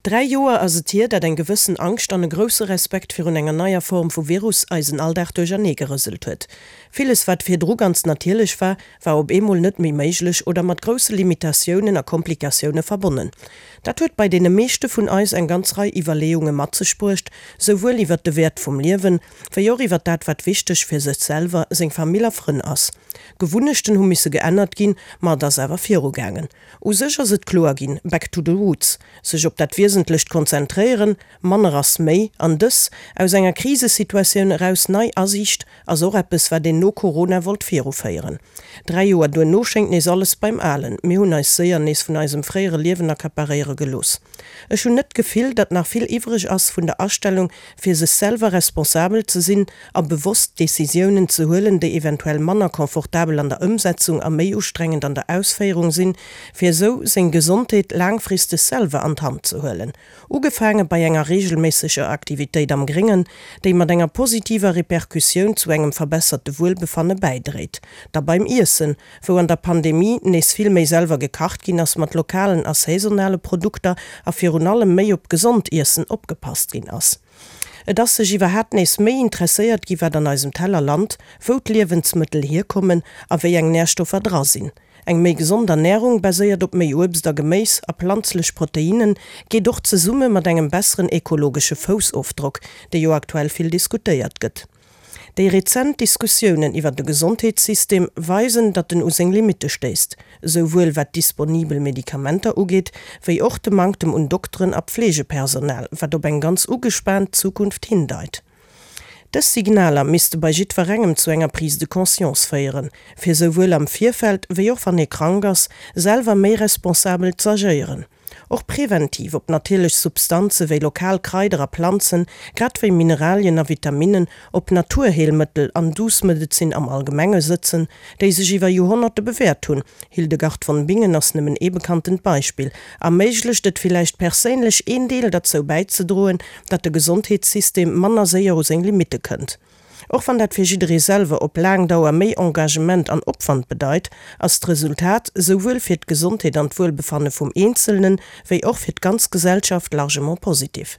3 Joer ass et hier, dat eng gewëssen Angscht an e grousse Respekt virun enger neier Form vu Virus eisen Alldag duerchernee gerëselt huet. Villes wat virdru ganz natierlech war, war op eemol net méi méiglech oder mat grousse Limitatiounen a Komplikatioune verbonnen. Dat huet bei deene meeschte vun eis eng ganz Rei Iwwerleeunge mat sech bruecht, souwuel iwwert de Wäert vum Liewen, wéi och iwwert dat wat wichteg fir sech selwer, seng Famill a Frënn ass. Gewunnechten hu misse geännert ginn, ma et ass awer virugaangen. U sech ass et kloer ginn, back to the roots, sech op dat Wiesentlecht konzentréieren, manner ass méi, an dës, aus enger Krisesituatioun eraus nei Asiicht ass och eppes, wat een no Corona wollt viruféieren. 3 Joer duerno schéngt nees alles beim Alen, mir hunn eis séier nees vun eisem fréiere Liewen accaparéiere gelooss. Ech hunn net d'Gefill, datt nach vill iwwreg ass vun der Astellung, fir sech selwer responsabel ze sinn a bewosst Decisiounen ze huelen, déi eventuell manner confortabel an der Ëmsetzung a méi ustrengend an der Ausféierung sinn, fir esou seng Gesondheet laangfristeg selwer an d'Hand ze huelen. Ugefaange bei enger reegelméisseger Aktivitéit am Gréngen, déi mat enger positiver Repercussioun zu engem verbesserte Wuelbefanne bäidréit. Da beim Iessen, wou an der Pandemie nees vill méi selwer gekacht ginn ass mat lokalen a saisonale Produkter a virun allem méi op gesond Iessen opgepasst ginn ass. Et ass sech iwwerhaapt nees méi interesséiert gi wat an eisem Teller lant, wou d'Liewensmëttel hierkommen a wéi eng Närstoffer dra sinn. Eng méi gesond Ernärung, baséiert op méi Uebst a Geméis a planzlech Proteinnen, geet och zesumme mat engem besseren ekologesche Foussofdrock, dee jo aktuell vill diskutéiert gëtt. Déi rezent Diskussiounen iwwer de Gesondheetssystem weisen, datt en u seng Limitte stéisst, esouwuel wat disponibel Medikamenter ugeet, wéi och de Manktem un Dokteren a Pflegepersonal, wat op eng ganz ugespaant Zukunft hindeit. Dës Signaler misste bei jiddwerengem zu enger Prise de conscience féieren, fir esouwuel am Virfeld wéi och wann ee krank ass, selwer méi responsabel z'agéieren. Och präventiv op natierlech Substanze wéi lokal Kraider a Planzen, grad wéi Mineralien a Vitaminnen, op Naturheelmëttel an douce Medezin am Allgemenge sëtzen, déi sech iwwer Joerhonnerte bewäert hunn, Hildegard von Bingen ass nëmmen ee bekanntent Beispill, erméiglecht et villäicht perséinlech een Deel derzou bäizedroen, datt de Gesondheetssystem manner séier u seng Limitte kënnt. Och wann dat fir jidderee selwer op laang Dauer méi Engagement an Opwand bedeit, ass d'Resultat, souwuel fir d'Gesondheet an d'Wuelbefanne vum Eenzelnen, wéi och fir d'ganz Gesellschaft largement positif.